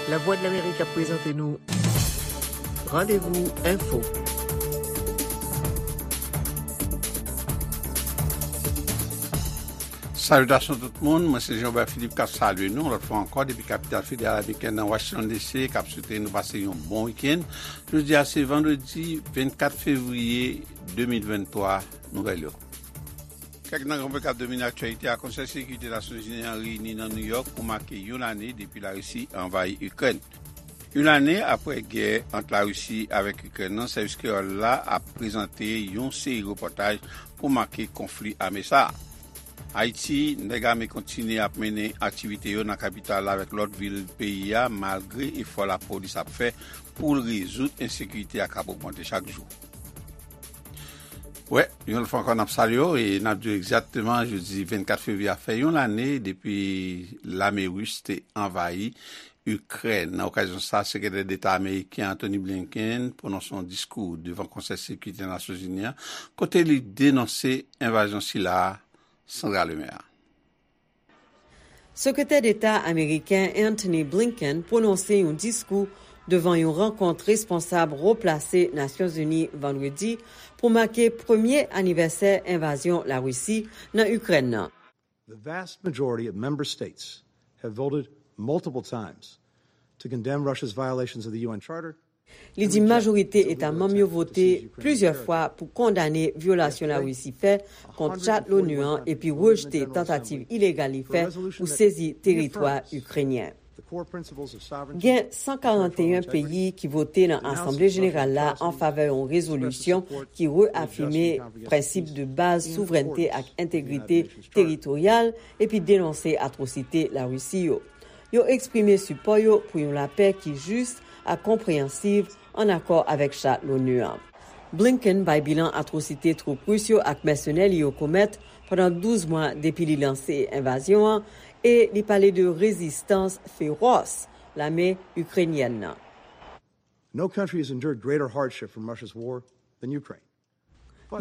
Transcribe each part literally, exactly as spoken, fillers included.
Lavwadlamerik ap prezante nou Randevou Enfo. Salitasyon tout moun, mwen se Jean Robert Philippe k ap salye nou yon lòt fwa ankò depi kapital federal ameriken nan Washington D C k ap swete nou pase yon bon wikenn. Jodi a se vandredi vennkat fevriye de mil venntwa, nouvèl yo. Kèk nan gran pwen k ap domine aktyalite a, Konsèy Sekirite Nasyonzini an reyini nan Nouyòk pou make yon lane depi Larisi anvayi Ikrèn. Yon lane apre gè ant Larisi avèk Ikrèn nan, sèvis kreyòl la ap prezante yon seri repòtaj pou make konfli ame sa a. Ayiti, nèg ame kontinye ap mennen aktivite yo nan kapital la avèk lòt vil peyi a, malgre efò lapolis ap fè pou l rezoud ensekirite a k ap ogmante chak jou. Wè, yon lòt fwa ankò, n ap salye w e n ap di w egzakteman, jodi vennkat fevriye a fè yon lane depi lame ris te anvayi Ikrèn. Nan okazyon sa a, Sekretè Deta ameriken Antony Blinken pwononse yon diskou devan Konsèy Sekirite Nasyonzini an, kote li denonse envazyon sila a, Sandra Lemaire. Sekretè Deta ameriken Antony Blinken pwononse yon diskou devan yon rankont responsab wo plase Nasyonzini vandredi pou make premye anivèsè envazyon Larisi nan Ikrèn nan. The vast majority of member states have voted multiple times to condemn Russia's violations of the U N Charter. Li di majorite eta manm yo vote plizyè fwa pou kondane vyolasyon Larisi fè kont chat l'ONU an epi rejte tantativ ilegal li fè pou sezi teritwa ikrenyen. Gen san karanteyen peyi ki vote nan Asanble Jeneral la an favè yon rezolisyon ki reafime prensip de baz souvrènte ak entegrite teritoryal epi denonse atwosite Larisi yo. Yo eksprime sipò yo pou yon lapè ki jis ak konpreyansiv ann akò avèk chat l'ONU an. Blinken bay bilan atwosite twoup ris yo ak mèsenè li yo komèt pandan douz mwa depi li lanse envazyon an e li pale de rezistans fewòs lame ikrenyèn nan. No country has endured greater hardship from Russia's war than Ukraine.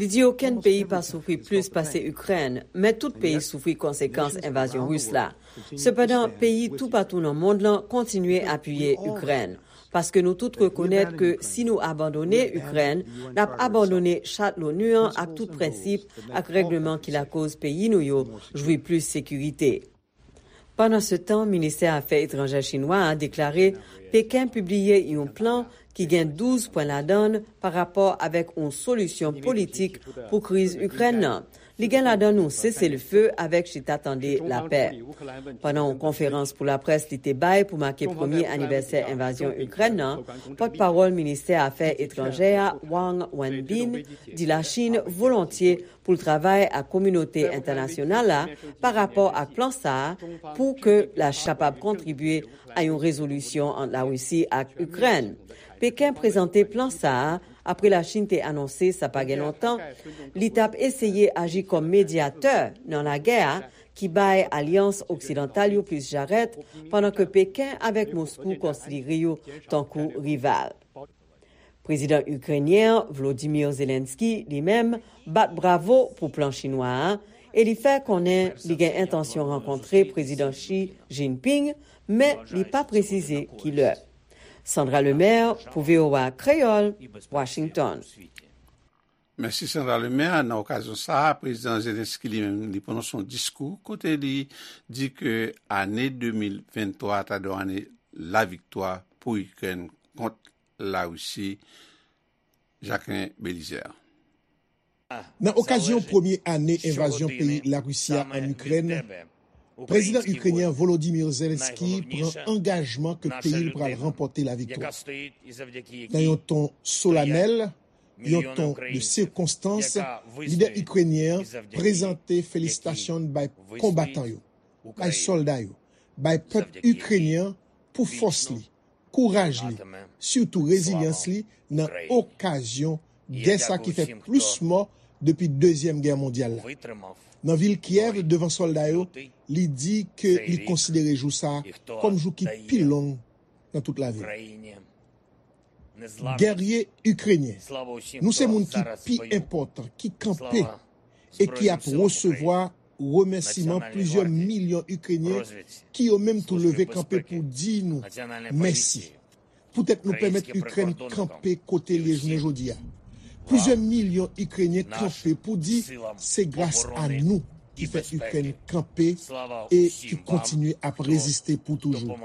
Li di okenn peyi pa soufri plis pase Ikrèn, men tout peyi soufri konsekans envazyon ris la. Sepandan, peyi toupatou nan mond lan kontinye apiye Ikrèn, paske nou tout rekonèt ke si nou abandone Ikrèn, n ap abandone chat l'ONU an ak tout prensip ak règleman ki lakoz peyi nou yo jwi plis sekirite. Pandansetan, ministè afè etranjè chinwa a deklare Peken pibliye yon plan ki gen douz pwen ladan l pa rapò avèk yon solisyon politik pou kriz Ikrèn nan. Li gen ladan yon seselefe avèk chita tande lapè. Pandan yon konferans pou laprès li te bay pou make premye anivèsè envazyon Ikrèn nan, pòtpawòl ministè afè etranjè a, Wang Wenbin, di Lachin volontye pou l travay ak kominote entènasyonal la pa rapò ak plan sa a pou ke Lachin kapab kontribye a yon rezolisyon ant Larisi ak Ikrèn. Peken prezante plan sa a apre Lachin te anonse sa pa gen lontan li t ap eseye aji kòm medyatè nan lagè a ki bay alyans oksidantal yo plis jarèt, pandan ke Peken avèk Moskou konsidere yo tankou rival. Prezidan ikrenyen an, Volodymyr Zelensky, li menm, bat bravo pou plan chinwa a e li fè konnen li gen entansyon rankontre Prezidan Xi Jinping, men li pa presize ki lè. Sandra Lemaire pou V O A Kreyòl, Washington. Mèsi Sandra Lemaire. Nan okazyon sa a, Prezidan Zelensky li menm, li pwononse yon diskou kote li di ke ane de mil venntwa ta dwe yon ane laviktwa pou Ikrèn kont Larisi. Jacquelin Belizaire. Nan okazyon premye ane envazyon peyi Larisi a ann Ikrèn, Prezidan ikrenyen Volodymyr Zelensky pran angajman ke peyi l pral ranpòte laviktwa. Nan yon ton solanèl, yon ton de sikonstans, lidè ikrenyen an prezante felisitasyon bay konbatan yo, bay sòlda yo, bay pèp ikrenyen an pou fòs li, kouraj li, sitou rezilyans li nan okazyon gè sa ki fè plis mò depi Dezyèm Gè Mondyal la. Nan vil Kyèv, devan sòlda yo, li di ke li konsidere jou sa a kòm jou ki pi long nan tout lavi l. Gèrye ikrenyen, nou se moun ki pi enpòtan ki kanpe e ki ap resevwa Remèsiman plizyè milyon Ikrenyen ki yo menm tou leve kanpe pou di nou mèsi. Poutèt nou pèmèt Ikrèn kanpe kote l ye jounen jodi a. Plizyè milyon Ikrenyen kanpe pou di se gras a nou ki fè Ikrèn kanpe e ki kontinye ap reziste pou toujou.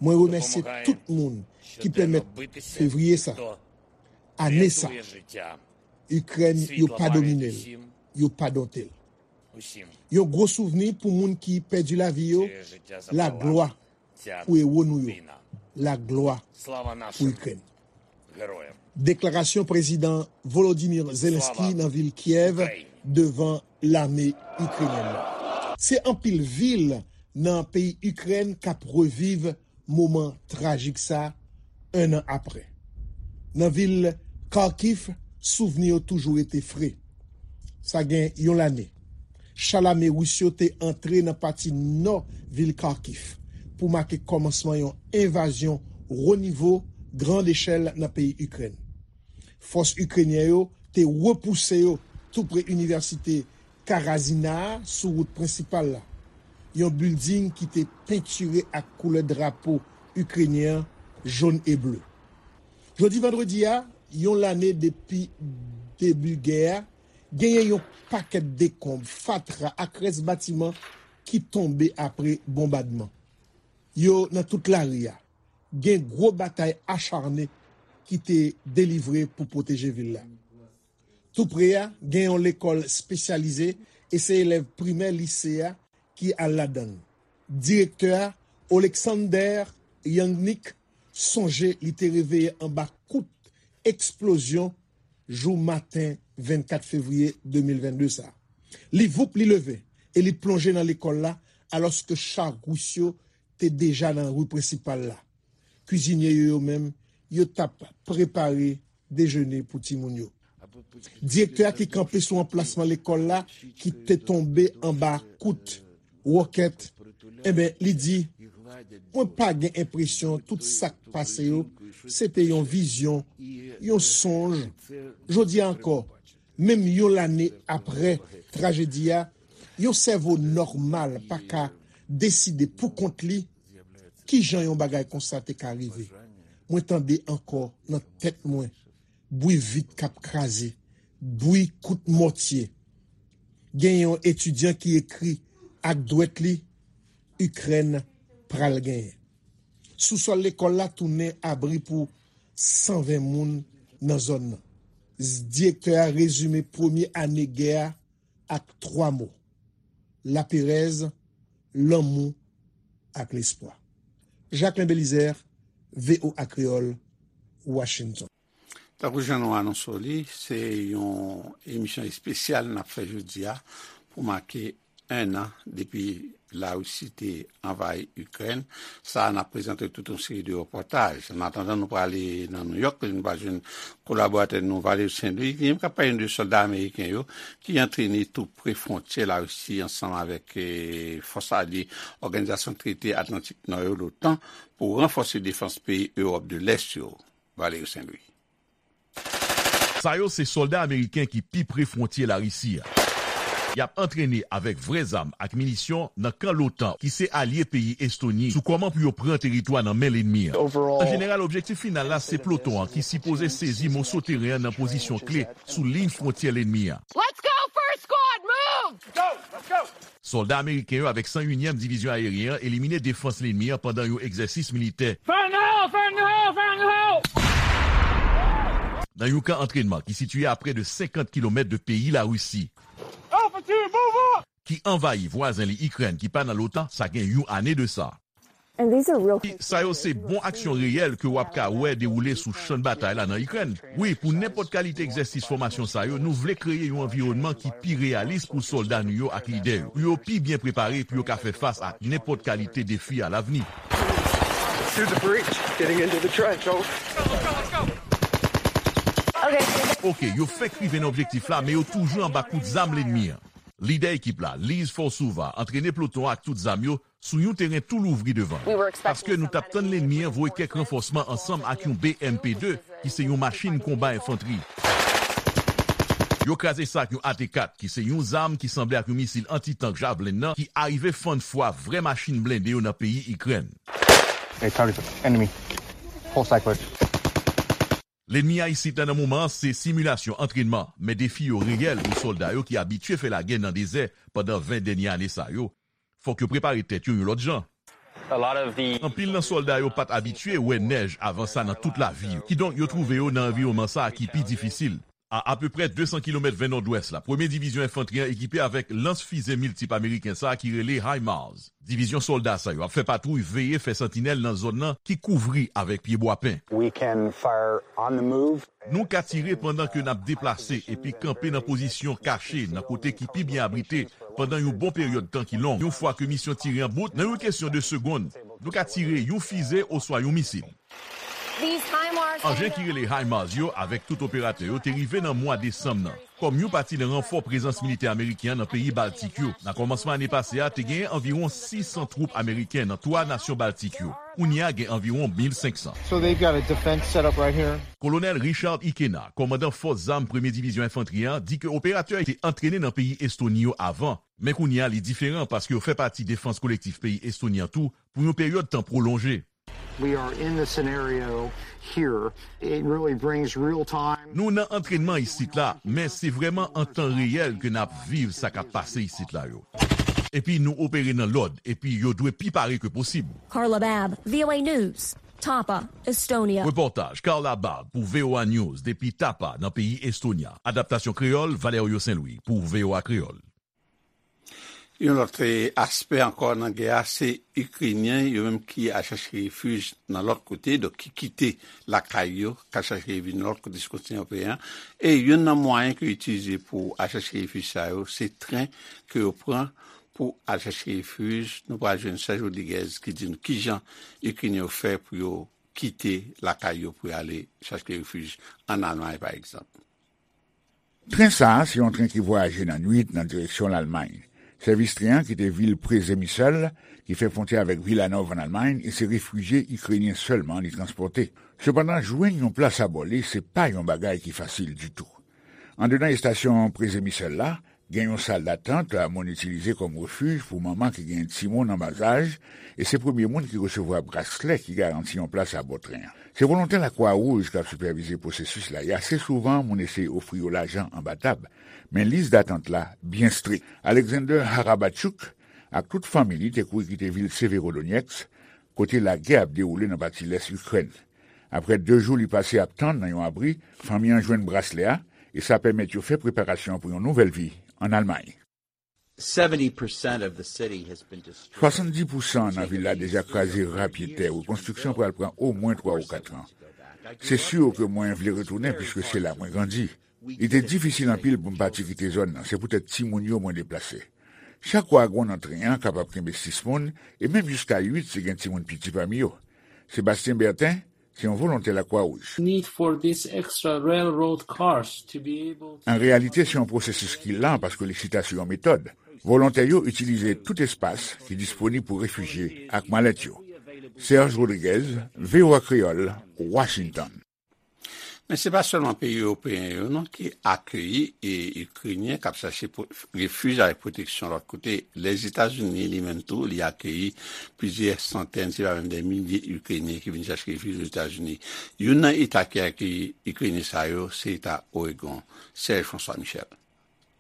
Mwen remèsye tout moun ki pèmèt fevriye sa, ane sa, Ikrèn, yo pa domine l, yo pa donte l. Yon gwo souvni pou moun ki pèdi lavi yo, laglwa pou ewo nou yo, laglwa pou Ikrèn. Deklarasyon Prezidan Volodymyr Zelensky nan vil Kyèv devan lame ikrenyèn nan. Se anpil vil nan peyi Ikrèn k ap reviv moman trajik sa, en an apre. Nan vil Kharkiv, souvni yo toujou rete fre. Sa gen yon lane, cha lame ris yo te antre nan pati nò vil Kharkiv pou make kòmansman yon envazyon wo nivo, grand echèl nan peyi Ikrèn. Fòs ikrenyen yo te repouse yo tou pre inivèsite Karazina a sou wout prensipal la, yon bilding ki te pentire ak koulè drapo ikrenyen an, jòn e ble. Jodi vandredi a, yon lane depi debi gè a, genyen yon pakèt dekonb, fatra ak rès batiman ki tonbe apre bonbadman. Yo nan tout lari a. Gen gwo batay acharne ki te delivre pou pwoteje vil la. Tou pre a, gen yon lekòl espesyalize e se elèv primè lise a ki al ladan l. Direktè a, Oleksandr Yangnik, sonje li te reveye anba kout eksplozyon jou maten vennkat fevriye de mil vennde sa. Li voup, li leve e li plonje nan lekòl la, alòske cha ris yo te deja nan ri prensipal la. Kwizinye yo, yo menm, yo t ap prepare dejene pou timoun yo. Direktè a ki kanpe sou anplasman lekòl la ki te tonbe anba kout wòkèt, enben, li di, mwen pa gen enpresyon tout sa k pase yo, se te yon vizyon, yon sonj. Jodi a ankò, menm yon lane apre trajedi a, yon sèvo nòmal pa ka deside pou kont li kijan yon bagay konsa te ka rive. Mwen tande ankò nan tèt mwen bwi vit k ap kraze, bwi kout mòtye. Gen yon etidyan ki ekri ak dwèt li, Ikrèn pral genyen. Sousòl lekòl la tounen abri pou san ven moun nan zòn nan. Direktè a rezime premye ane gè a ak twa mo, laperèz, lanmou ak lespwa. Jacquelin Belizaire, V O A Kreyòl, Washington. Tankou jan nou anonse w li, se yon emisyon espesyal n ap fè jodi a pou make en an depi Larisi te anvayi Ikrèn. Sa a, n ap prezante tout yon seri de repòtaj. An atandan, nou prale nan Nouyòk, kote nou pral jwenn kolaboratè nou, Valery Saint Louis, ki menm k ap pale nou de sòlda ameriken yo ki antrene tou pre fwontyè Larisi ansanm avèk, eh, fòs alye Òganizasyon Trete Atlantik Nò yo, l'OTAN, pou ranfòse defans peyi Ewòp de Lès yo. Valery Saint Louis. Sa yo se sòlda ameriken ki pi pre fwontyè Larisi a. Y ap antrene avèk vrè zam ak minisyon nan kan l'OTAN, ki se alye peyi Estoni, sou kòman pou yo pran teritwa nan men lènmi an. An jeneral, objektif final la se ploton an ki sipoze sezi moso teren an nan pozisyon kle sou liy fwontyè lènmi an. Let's go, first squad, move! Sòlda ameriken yo avèk san yunyèm Divizyon Ayeryen an elimine defans lènmi an pandan yon egzèsis militè. Fire in the hole! Fire in the hole! Fire in the hole! Nan yon kan antrènman ki sitiye a prè de senkant kilomèt de peyi Larisi, Infantry, move up! Ki anvayi vwazen li Ikrèn ki pa nan l'OTAN, sa gen yon ane de sa. And these are real cases. Sa yo se bon aksyon reyèl ke w ap ka wè dewoule sou chan batay la nan Ikrèn. Wi, pou nenpòt kalite egzèsis fòmasyon sa yo, nou vle kreye yon anviwònman ki pi reyalis pou sòlda nou yo ak lidè yo, pou yo pi byen prepare, pou yo ka fè fas ak nenpòt kalite defi alavni. Through the breach, getting into the trench, over. Okay. Oke, yo fenk rive nan objektif la, men yo toujou anba kout zam lènmi an. Lidè ekip la, Liz Forsova, antrene ploton an ak tout zam yo, sou yon teren tou louvri devan l. Paske nou t ap tann lènmi an voye kèk ranfòsman ansanm ak yon B M P de, ki se yon machin konba enfantri. Yo kraze sa ak yon A T kat, ki se yon zam ki sanble ak yon misil anti-tank Javelin nan, ki arive fann fwa vrè machin blende yo nan peyi Ikrèn. Hey, target enemy. Full cyclist. Lènmi a isit la nan moman an se similasyon antrènman, men defi yo reyèl pou sòlda yo ki abitye fè lagè nan dezè pandan ven dènye ane sa yo. Fòk yo prepare tèt yo yon lòt jan. Anpil nan sòlda yo pa t abitye wè nèj avan sa nan tout lavi yo. Kidonk, yo twouve yo nan anviwònman sa a ki pi difisil. A apeprè de san kilomèt ven nòdwès la, premye divizyon enfantri an ekipe avèk lans fize miltip ameriken sa a ki rele HIMARS. Divizyon sòlda sa yo ap fè patwouy veye fè santinèl nan zòn nan ki kouvri avèk pyebwa pen. We can fire on the move. Nou ka tire pandan ke n ap deplase epi kanpe nan pozisyon kache nan kote ki pi byen abrite pandan yon bon peryòd tan ki long. Yon fwa ke misyon tire an bout, nan yon kesyon de segonn, nou ka tire yon fize oswa yon misil. Anjen ki rele HIMARS yo avèk tout operatè yo te rive nan mwa desanm nan kòm yon pati nan ranfò prezans militè ameriken an nan peyi Baltik yo. Nan kòmansman ane pase a, te genyen anviwon sis san twoup ameriken nan twa nasyon Baltik yo. Kounye a gen anviwon mil senk san. So they've got a defense set up right here. Kolonèl Richard Ikena, kòmandan fòs zam Premye Divizyon Enfantri an, di ke operatè yo te antrene nan peyi Estoni yo avan, men kounye a li diferan paske yo fè pati defans kolektif peyi Estoni an tou pou yon peryòd tan pwolonje. We are in the scenario here. It really brings real time. Nou nan antrènman isit la, men se vrèman an tan reyèl ke n ap viv sa k ap pase isit la yo. Epi nou opere nan lòd, epi yo dwe pi pare ke posib. Carla Babb, V O A News, Tapa, Estonia. Repòtaj Carla Babb pou V O A News depi Tapa nan peyi Estonia. Adaptasyon kreyòl, Valerio Saint-Louis pou V O A Kreyòl. Yon lòt aspè ankò nan gè a, se Ikrenyen yo menm ki al chache refij nan lòt kote, donk ki kite lakay yo, k al chache refij nan lòt kote sou kontinan ewopeyen an. E youn nan mwayen ke yo itilize pou al chache refij sa yo, se tren ke yo pran pou al chache refij. Nou pral jwenn Serge Rodriguez ki di nou kijan Ikrenyen yo fè pou yo kite lakay yo pou y ale chache refij ann Almay, pa egzanp. Tren sa a se yon tren ki vwayaje nan nuit nan direksyon Lalmay. Sèvis tren an kite vil Przemysl, ki fè fwontyè avèk Wilanów ann Almay, e se refijye ikrenyen sèlman li transpòte. Sepandan, jwenn yon plas abò li se pa yon bagay ki fasil ditou. Andedan estasyon Przemysl la, gen yon sal datant moun itilize kòm refij pou manman ki gen timoun an bazaj, e se premye moun ki resevwa braslè ki garanti yon plas abò tren an. Se volontè Lakwa Wouj k ap sipèvize pwosesis la, e ase souvan moun eseye ofri yo lajan anba tab, men lis datant la byen strik. Alexander Harabachouk ak tout fanmi li te kouri kite vil Severodonetsk, kote lagè ap dewoule nan pati lès Ikrèn. Apre de jou li pase ap tann nan yon abri, fanmi an jwenn braslè a, e sa pèmèt yo fè preparasyon pou yon nouvèl vi ann Almay. Swasanndis pousan nan vil la deja kraze rapyetè. Rekonstriksyon pral pran omwen twa ou kat an. Se si ke mwen vle retounen piske se la mwen grandi. Li te difisil anpil pou m pati kite zòn nan, se poutèt timoun yo mwen deplase. Chak wagon nan tren an kapab kenbe sis moun, e menm jiska uit si gen timoun piti pami yo. Sébastien Bertin, se yon volontè Lakwa Wouj. An reyalite, se yon pwosesis ki lan paske li chita sou yon metòd. Volontè yo itilize tout espas ki disponib pou refijye ak malèt yo. Serge Rodriguez, V O A Kreyòl, Washington. Men se pa sèlman peyi ewopeyen yo non ki akeyi Ikrenyen k ap chache refij avèk pwoteksyon lòt kote. Lèzetazini li menm tou, li akeyi plizyè santèn, si pa menm dè milye Ikrenyen ki vin chache refij Ozetazini. Youn nan eta ki akeyi Ikrenyen sa yo, se eta Oregon. Serge François Michel.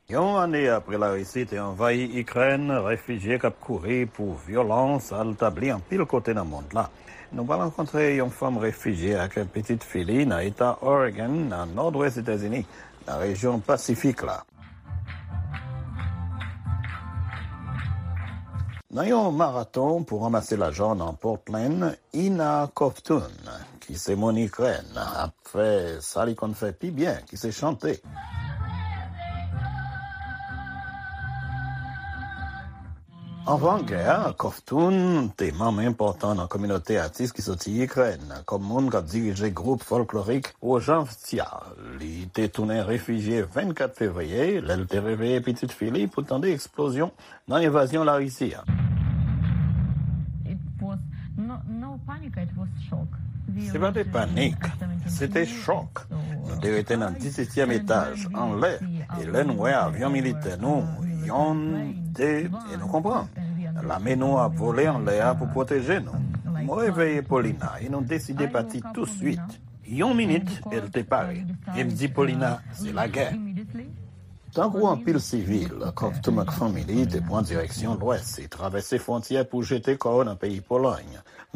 Yon ane apre Larisi te anvayi Ikrèn, refijye k ap kouri pou vyolans al tabli anpil kote nan mond la. Nou pral rankontre yon fanm refijye ak pitit fi li nan eta Oregon, nan nòdwès Etazini, nan rejyon Pasifik la. Nan yon maraton pou ranmase lajan nan Portland, Ina Kovtun, ki se moun Ikrèn, ap fè sa li konn fè pi byen, ki se chante. Anvan gè a, Kovtun te manm enpòtan nan kominote atis ki soti Ikrèn, kòm moun k ap dirije gwoup fòlklorik Wojavtsia. Li te tounen refijye vennkat fevriye, lè l te reveye pitit fi li pou tande eksplozyon nan envazyon Larisi a. Se pa te panik, se te chòk. Nou te rete nan disetyèm etaj, anlè, e lè nou wè avyon militè nou, yonn, de, e nou konprann. Lame nou ap vole anlè a pou pwoteje nou. Mwen reveye Paulina e nou deside pati touswit. Yon minit, e l te pare. E m di Paulina, se lagè. Tankou anpil sivil, Covton ak fanmi li te pran direksyon lwès e travèse fwontyè pou jete kò yo nan peyi Polòy.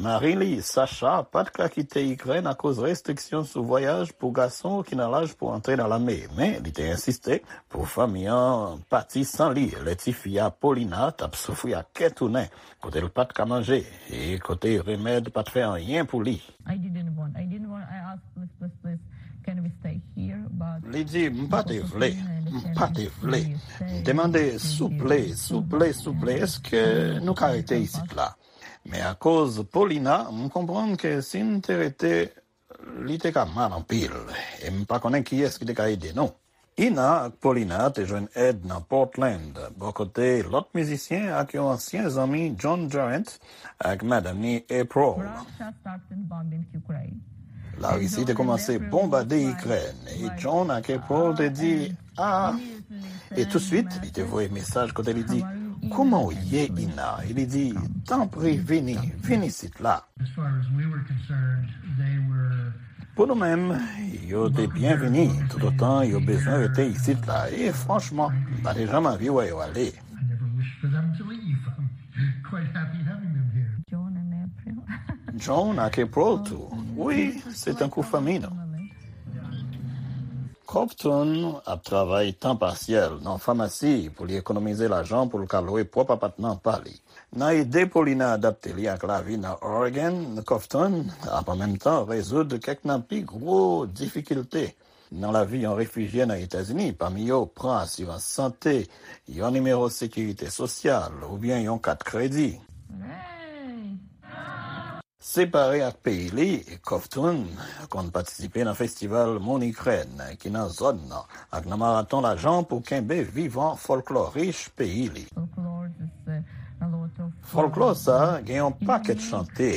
Mari li, Sacha, pa t ka kite Ikrèn akoz restriksyon sou vwayaj pou gason ki nan laj pou antre nan lame, men li te ensiste pou fanmi an pati san li lè tifi a Paulina t ap soufri ak kè tounen, kote l pa t ka manje e kote remèd pa t fè anyen pou li. I didn't want. I didn't want. I asked, "Please, please, please, can we stay here?" But li di, "M pa te vle, m pa te vle." M te mande, "Souple, souple, souple, èske nou ka rete isit la?" Men akoz Paulina, m konprann ke si n te rete, li te ka mal anpil, e m pa konnen kiyès ki te ka ede nou. Ina ak Paulina te jwenn èd nan Portland, bò kote lòt mizisyen ak yon ansyen zanmi, John Durant, ak madanm ni, April. Russia started bombing Ukraine. Larisi te kòmanse bonbade Ikrèn, e John ak April te di, "Ah." E touswit, li te voye mesaj kote li di, "Kouman w ye, Ina?" E li di, "Tanpri, vini, vin isit la." As far as we were concerned, they were Pou nou menm, yo te byenvini toutotan yo bezwen rete isit la, e franchman, m pa te janm anvi wè yo ale. I never wished for them to leave. I'm quite happy having them here. John and April. John ak April tou. Wi, se tankou fanmi nou. Covton ap travay tan pasyèl nan famasi pou li ekonomize lajan pou l ka lwe pwòp apatman pa li. Nan ede Paulina adapte li ak lavi nan Oregon, Covton ap an menm tan rezoud kèk nan pi gwo difikilte nan lavi yon refijye nan Etazini, pami yo pran asirans sante, yon nimewo sekirite sosyal oubyen yon kat kredi. Separe ak peyi li, Covton konn patisipe nan festival Moun Ikrèn ki nan zòn nan ak nan maraton lajan pou kenbe vivan fòlklò rich peyi li. Fòlklò sa a gen yon pakèt chante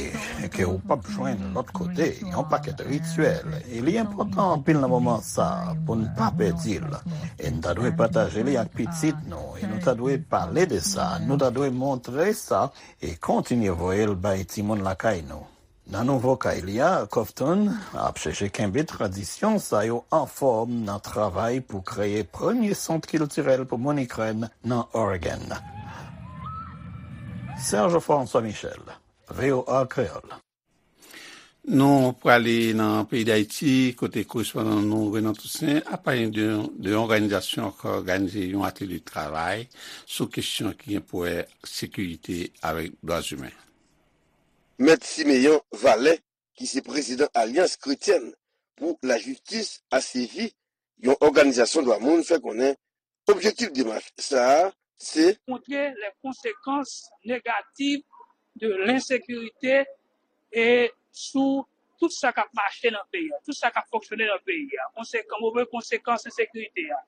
ke ou p ap jwenn lòt kote, yon pakèt rityèl, e li enpòtan anpil nan moman sa a pou n pa pèdi l. E n ta dwe pataje li ak pitit nou, e nou ta dwe pale de sa, nou ta dwe montre sa, e kontinye voye l bay timoun lakay nou. Nan nouvo kay li a, Covton ap chèche kenbe tradisyon sa yo anfòm nan travay pou kreye premye sant kiltirèl pou moun Ikrèn nan Oregon. Serge François Michel, V O A Kreyòl. Nou prale nan peyi Dayiti, kote korespondan nou, Renan Toussaint, ap pale de, de yon òganizasyon k òganize yon atelye travay sou kesyon ki gen pou wè sekirite avèk dwa imen. Mèt Simeon Valè, ki se prezidan Alyans Kretyèn pou Lajistis, A C J, yon òganizasyon dwa moun, fè konnen objektif demach sa a se montre les conséquences négatives de l'insécurité e sou tout sa k ap mache nan peyi a, tout sa k ap fonksyone nan peyi a. Konsekan, move konsekans ensekirite a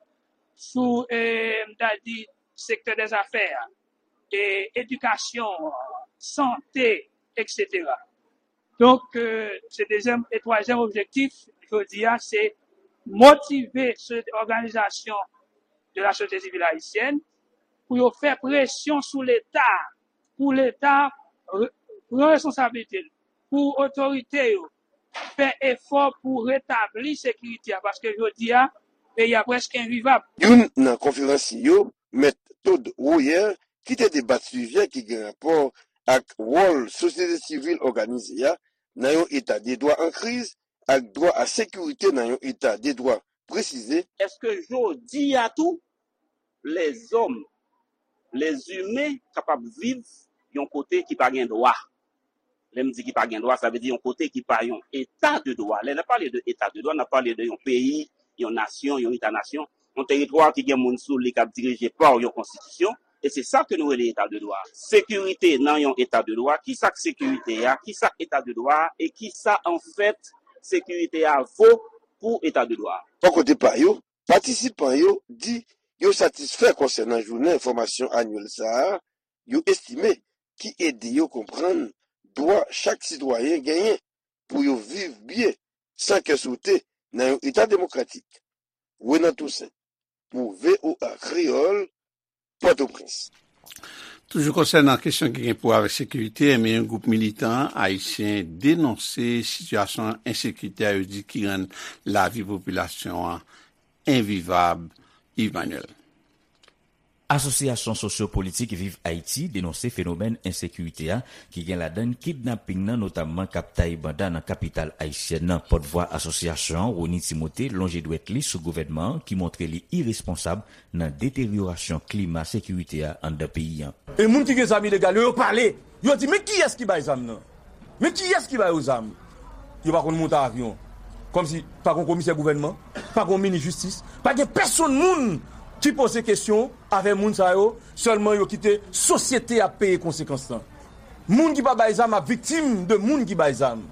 sou, e, m ta di, sektè dèzafè a, e, edikasyon an, sante, etsetera. Donk, e, se dezyèm e twazyèm objektif, jodi a, se motive sosyete, òganizasyon de la sosyete sivil ayisyèn pou yo fè presyon sou Leta, pou Leta re-, pran responsablite l, pou otorite yo fè efò pou retabli sekirite a, paske jodi a, peyi a prèske envivab. Youn nan konferansye yo, Mèt Todd Royer, ki te debat sijè ki gen rapò ak wòl sosyete sivil òganize a nan yon eta de dwa an kriz ak dwa a sekirite nan yon eta de dwa, presize. Èske jodi a tou, lèzòm, lèzimen kapab viv yon kote ki pa gen dwa? Lè m di ki pa gen dwa, sa vle di yon kote ki pa yon eta de dwa. Lè n ap pale de eta de dwa, n ap pale de yon peyi, yon nasyon, yon eta nasyon, yon teritwa ki gen moun sou li k ap dirije pa yon konstitisyon, e se sa ke nou rele eta de dwa. Sekirite nan yon eta de dwa, ki sa k sekirite a, ki sa k eta de dwa a, e ki sa, anfèt, sekirite a vo pou eta de dwa a. Bò kote pa yo, patisipan yo di yo satisfè konsènan jounen fòmasyon anyèl sa a, yo estime ki ede yo konprann dwa chak sitwayen genyen. pou yo viv byen, san kè sote, nan yon eta demokratik. Renan Toussaint, pou V O A Kreyòl, Pòtoprens. Toujou konsènan kesyon ki gen pou wè avèk sekirite, enben yon gwoup militan ayisyen denonse sitiyasyon ensekirite a, yo di, ki rann lavi popilasyon an envivab. Yves Manuel. Asosyasyon sosyo-politik Viv Ayiti denonse fenomèn ensekirite a, ki gen ladan l kidnaping nan, notamman k ap tay banda nan kapital ayisyèn nan. Pòtvwa asosyasyon an, Rony Timothé, lonje dwèt li sou gouvènman an, ki montre li iresponsab nan deteryorasyon klima sekirite a anndan peyi an. E moun ki gen zam ilegal yo, yo pale. Yo di, "Men kiyès ki bay zam nan? Men kiyès ki ba yo zam?" Yo pa konn monte avyon. Kòmsi pa gen komisè gouvènman, pa gen minis jistis, pa gen pèsonn moun ki poze kesyon avè moun sa yo, sèlman yo kite sosyete a peye konsekans lan. Moun ki pa bay zam ap viktim de moun ki bay zam.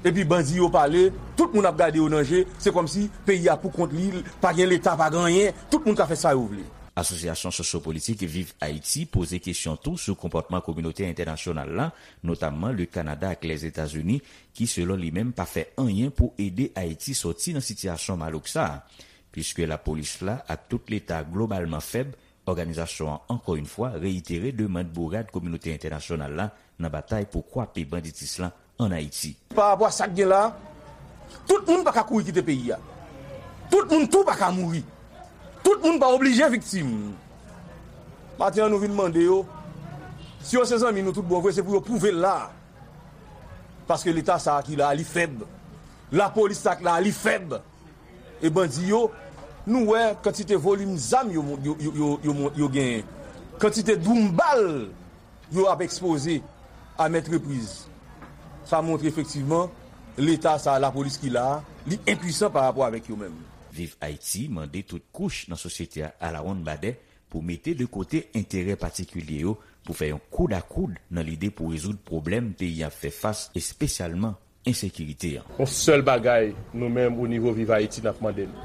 Epi bandi yo pale, tout moun ap gade yo nan je, se kòmsi peyi a pou kont li, pa gen leta, pa gen anyen, tout moun ka fè sa yo vle. Asosyasyon sosyo-politik Viv Ayiti poze kesyon tou sou konpòtman kominote entènasyonal la, notamman le Kanada ak Lèzetazini, ki, selon li menm, pa fè anyen pou ede Ayiti sòti nan sitiyasyon malouk sa a. Piske lapolis la ak tout leta globalman fèb, òganizasyon an, ankò yon fwa, reyitere demann bourad kominote entènasyonal la nan batay pou kwape banditis lan ann Ayiti. Pa rapò a sa k gen la, tout moun pa ka kouri kite peyi a. Tout moun tou pa ka mouri. Tout moun pa oblije viktim. Maten an, nou vin mande yo, si yo se zanmi nou tout bon vre, se pou yo pwouve l la. Paske leta sa a ki la a, li fèb. Lapolis sa a ki la a, li fèb. E bandi yo, nou wè kantite volim zam yo, yo, yo, yo, yo, yo genyen. Kantite doum bal yo ap ekspoze a maintes reprises. Sa montre efektivman leta sa a, lapolis ki la a, li enpwisan pa rapò avèk yo menm. Viv Ayiti mande tout kouch nan sosyete a alawonnbadè pou mete de kote enterè patikilye yo pou fè yon koud a koud nan lide pou rezoud pwoblèm peyi a ap fè fas, espesyalman ensekirite an. Yon sèl bagay, nou menm, o nivo Viv Ayiti, n ap mande l.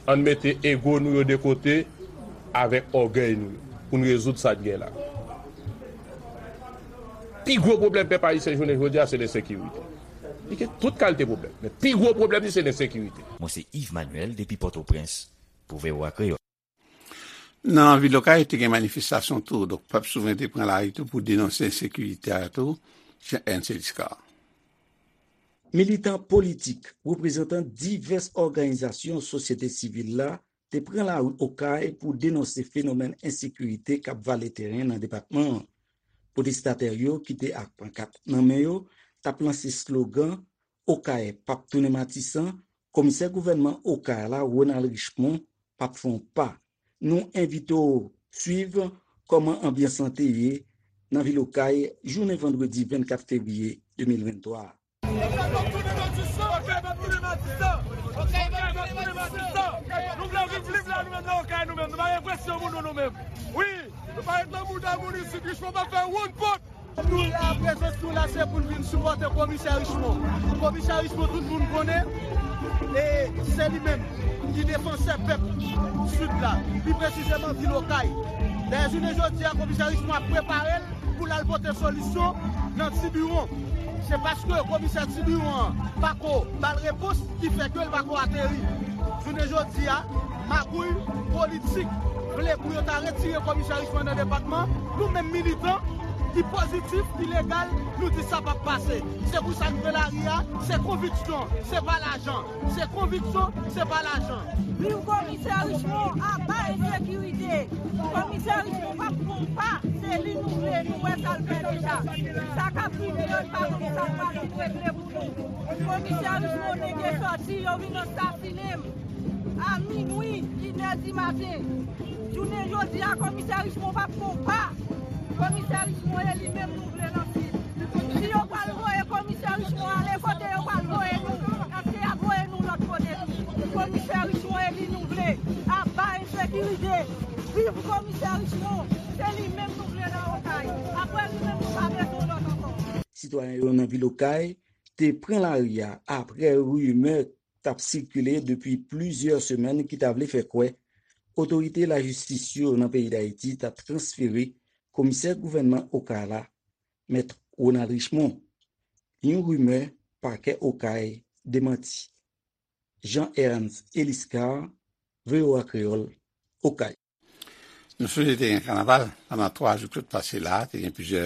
Ann mete ego nou yo de kote avèk ògèy nou yo pou n rezoud sa n gen la. Pi gwo pwoblèm pèp ayisyen jounen jodi a, se lensekirite. Li gen tout kalite pwoblèm, men pi gwo pwoblèm li se lensekirite. Mwen se Yves Manuel depi Pòtoprens pou V O A Kreyòl. Nan vil Okay, te gen manifestasyon tou. Donk, pèp souvren te pran lari tou pou denonse ensekirite a tou, Jean Ernst Eliscar. Militan politik, reprezantan divès òganizasyon sosyete sivil la te pran lari Okay pou denonse fenomèn ensekirite k ap vale teren nan depatman an. Pwotestatè yo ki te ak pankat nan men yo t ap lanse slogan Okay p ap tounen Matisan, komisè gouvènman Okay la, Ronald Richemond, p ap fè yon pa. Nou envite w swiv kòman anbyans lan te ye nan vil Okay jounen vandredi vennkat fevriye de mil venntwa a. Nou vle viv lib la, nou menm nan Okay, nou menm. Nou pa gen presyon moun, nou, nou menm. Wi, nou pa ret nan mouda moun isit, Richemond pa fè woun pot. Nou la, prezans nou la, se pou n vin sipòte komisè Richemond. Komisè Richemond, tout moun konnen, e se li menm ki defansè pèp Sid la, pi presizeman vil Okay. Dayè, jounen jodi a, komisè Richemond ap prepare l pou l al pote solisyon nan Tibiwon. Se paske komisè Tibiwon an pa ko ba l repons ki fè ke l pa ko ateri. Jounen jodi a, magouy politik vle pou yo ta retire komisè Richemond nan depatman. Nou menm militan ki pozitif, ki legal, nou di sa p ap pase. Se pou sa n pran lari a, se konviksyon, se pa lajan. Se konviksyon, se pa lajan. Viv komisè Richemond, aba ensekirite. Komisè Richemond p ap pran pa, se li nou vle, nou wè sa l fè deja. Sa k ap vini an, n pa konn sa l pral vin regle pou nou. Komisè Richemond, nèg yo sòti, yo vin ansasinen m a minwi, inè di maten. Jounen jodi a, komisè Richemond p ap pran pa. Komisè Richemond, e li menm nou vle nan Sid. Si yo pral voye komisè Richemond ale, kote yo pral voye nou? Èske y ap voye nou lòt kote tou? Komisè Richemond, e li nou vle. Aba ensekirite. Viv komisè Richemond. Se li menm nou vle nan Okay. Apre li menm, nou pa bezwen lòt ankò. Sitwayen yo nan vil Okay te pran lari a apre rimè t ap sikile depi plizyè semèn ki ta vle fè kwè otorite lajistis yo nan peyi Dayiti ta transfere komisè gouvènman Okay la, Mèt Ronald Richemond. Yon rimè pakè Okay demanti. Jean Ernst Eliscar, V O A Kreyòl, Okay. Nou sonje te gen kanaval pandan twa jou k sot pase la, te gen plizyè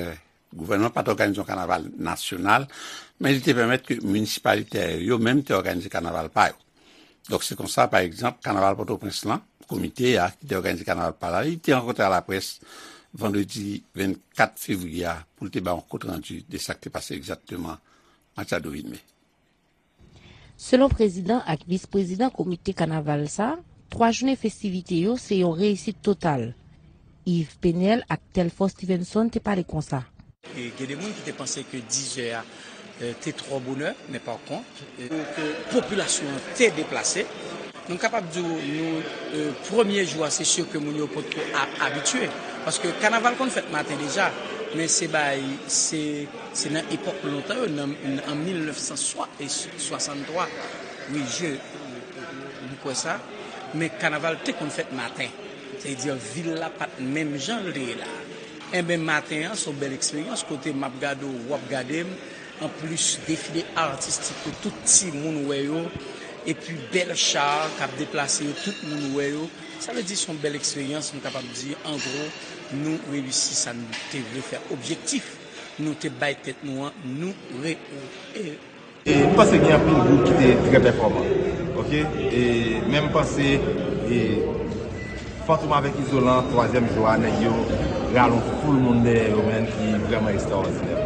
gouvènman pa t òganize yon kanaval nasyonal, men li te pèmèt ke minisipalite yo menm te òganize kanaval pa yo. Donk se konsa, pa egzanp, kanaval Pòtoprens lan, komite a ki te òganize kanaval pa la, li te rankontre a laprès vandredi vennkat fevriye a pou l te bay yon kont randi de sa k te pase egzakteman Matiado Vilmé. Selon prezidan ak vis prezidan komite kanaval sa, twa jounen festivite yo se yon reyisit total. Yves Penel ak Telfort Stevenson te pale konsa. E gen de moun ki te panse ke dizè a te twò bonè, men pa kont, ke popilasyon an te deplase. Nou kapab di w, nou, premye jou a, se si ke moun yo potko abitye. Paske kanaval konn fèt maten deja, men se bay, se, se nan epòk lontan yo, nan, an mil nèf san swasanntwa, wi, je, m kwè sa, men kanaval te konn fèt maten. Se di, vil la pa t menm jan l te ye la. Enben, maten an, se yon bèl eksperyans, kote m ap gade w, w ap gade m, anplis defile atistik yo, tout timoun wè yo, epi bèl cha k ap deplase yo, tout moun wè yo. Sa vle di se yon bèl eksperyans, m kapab di, an gwo, nou reyisi sa nou te vle fè. Objektif nou te bay tèt nou an, nou re. E m panse gen anpil gwoup ki te trè pèfòman. Oke? E, men m panse e, Fantom avèk Izolan, twazyèm jou a, nèg yo rale yon foul moun dèyè yo, menn, ki vrèman ekstraòdinè.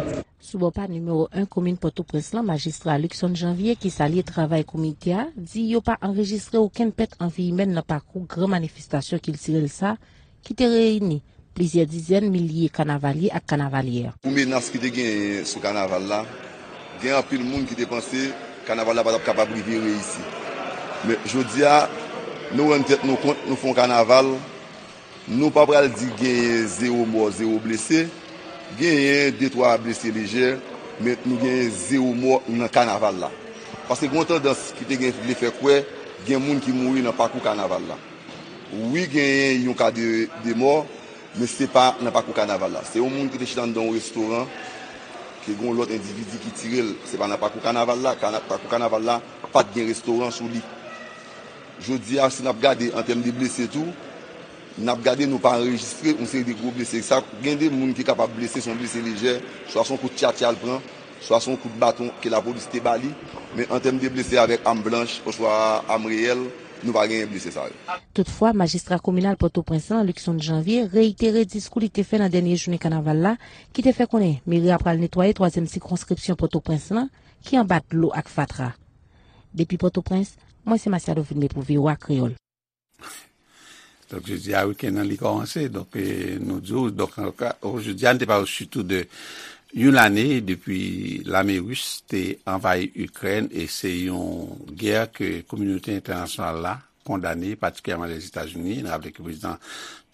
Sou bò pa nimewo en komin Pòtoprens lan, majistra Luckson Janvier, ki salye travay komite a, di yo pa anrejistre okenn pèt an vi imèn nan pakou gran manifestasyon kiltirèl sa ki te reyini plizyè dizèn milye kanavalye ak kanavalyè. Pou menas ki te genyen sou kanaval la, gen anpil moun ki te panse kanaval la pa t ap kapab rive reyisi. Men jodi a, nou rann tèt nou kont, nou fè yon kanaval, nou pa pral di genyen zewo mò, zewo blese, genyen de twa blese lejè, men nou genyen zewo mò nan kanaval la. Paske gen yon tandans ki te gen vle fè kwè gen moun ki mouri nan pakou kanaval la. Wi, genyen yon ka de, de mò, men se pa nan pakou kanaval la. Se yon moun ki te chita anndan yon restoran, ke gen yon lòt endividi ki tire l. Se pa nan pakou kanaval la. Kana-, pakou kanaval la pa t gen restoran sou li. Jodi a, si n ap gade an tèm de blese tou, n ap gade nou pa anrejistre yon seri de gwo blese. Sa, gen de moun ki kapab blese, se yon blese lejè, swa se yon kout tchatcha l pran, swa se yon kout baton ke lapolis te ba li, men an tèm de blese avèk am blanch oswa am reyèl, nou pa genyen blese sa yo. Toutfwa, majistra kominal Pòtoprens lan, Luckson Janvier, reyitere diskou li te fè nan dènye jounen kanaval la, ki te fè konnen meri a pral netwaye twazyèm sikonskripsyon Pòtoprens lan, ki anba dlo ak fatra. Depi Pòtoprens, mwen se Masiado Vilmé pou V O A Kreyòl. Donk, jodi a, wikenn nan, li kòmanse. Donk, e, nou di w, donk, an ka, jodi a, nou te pale sitou de yon lane depi lame ris te anvayi Ikrèn, e se yon gè ke kominote entènasyonal la kondane, patikilyèman Lèzetazini. Nou raple ke prezidan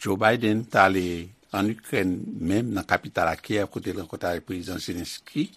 Joe Biden t ale ann Ikrèn menm, nan kapital la, Kyèv, kote l rankontre avèk prezidan Zelensky,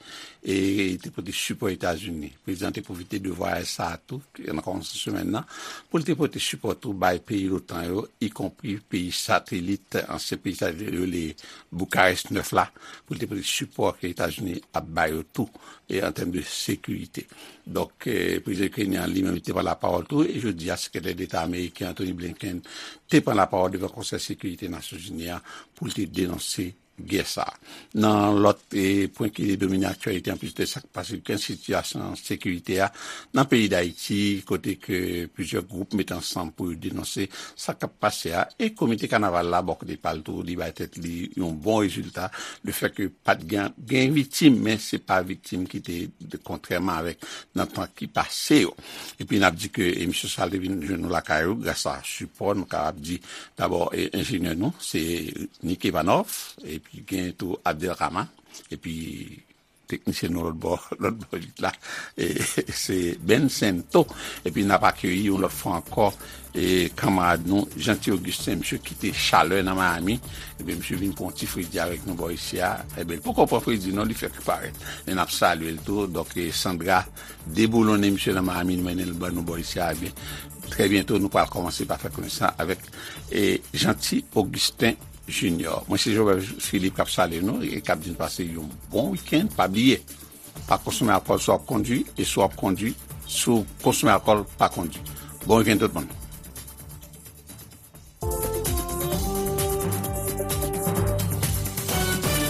e te pote sipò Etazini. Prezidan te pwofite de vwayaj sa a tou, nan kòmansman semèn nan, pou l te pote sipò tou bay peyi lotan yo, ikonpri peyi satelit, ansyen peyi satelit yo rele Boukarès nèf la, pou l te pote sipò ke Etazini ap ba yo tou, e an tèm de sekirite. Donk, e, prezidan ikrenyen an li menm, li te pran lapawòl tou, e jodi a, sekretè deta ameriken Antony Blinken te pran lapawòl devan Konsèy Sekirite Nasyonzini an pou l te denonse gè sa a. Nan lòt, e, pwen ki domine aktyalite, anplis de sa k pase, gen sitiyasyon sekirite a nan peyi Dayiti, kote ke plizyè gwoup mete ansanm pou yo denonse sa k ap pase a, e komite kanaval la, bò kote pa l tou, li bay tèt li yon bon rezilta, lefètke pa t gen, gen viktim, men se pa viktim ki te, kontrèman avèk nan tan ki pase yo. Epi n ap di ke emisyon sa a te vin jwenn nou lakay ou gras a sipò, nou kapab di, dabò, e, enjenyè nou, se Nick Ivanov, epi gen tou Abdelrahman, epi teknisyen nou lòt bò, lòt bò vit la, e, se Ben Sento. Epi n ap akeyi yon lòt fwa ankò, e, kanmarad nou, Jeanty Augustin, misye kite chalè nan Miami, epi misye vin pran yon ti fredi avèk nou bò isi a. Ebyen, li poko pran fredi non, li fèk parèt. Men n ap salye l tou. Donk, e, Sandra deboulonnen misye nan Miami, li mennen l ban nou bò isi a. Ebyen, trè byento, nou pral kòmanse pa fè konesans avèk, e, Jeanty Augustin Junior. Mwen se Jobert Philippe k ap salye nou e k ap di n pase yon bon wikenn. Pa bliye, Pa konsome alkòl si w ap kondwi, e si w ap kondwi, si w konsome alkòl, pa kondwi. Bon weekend tout moun.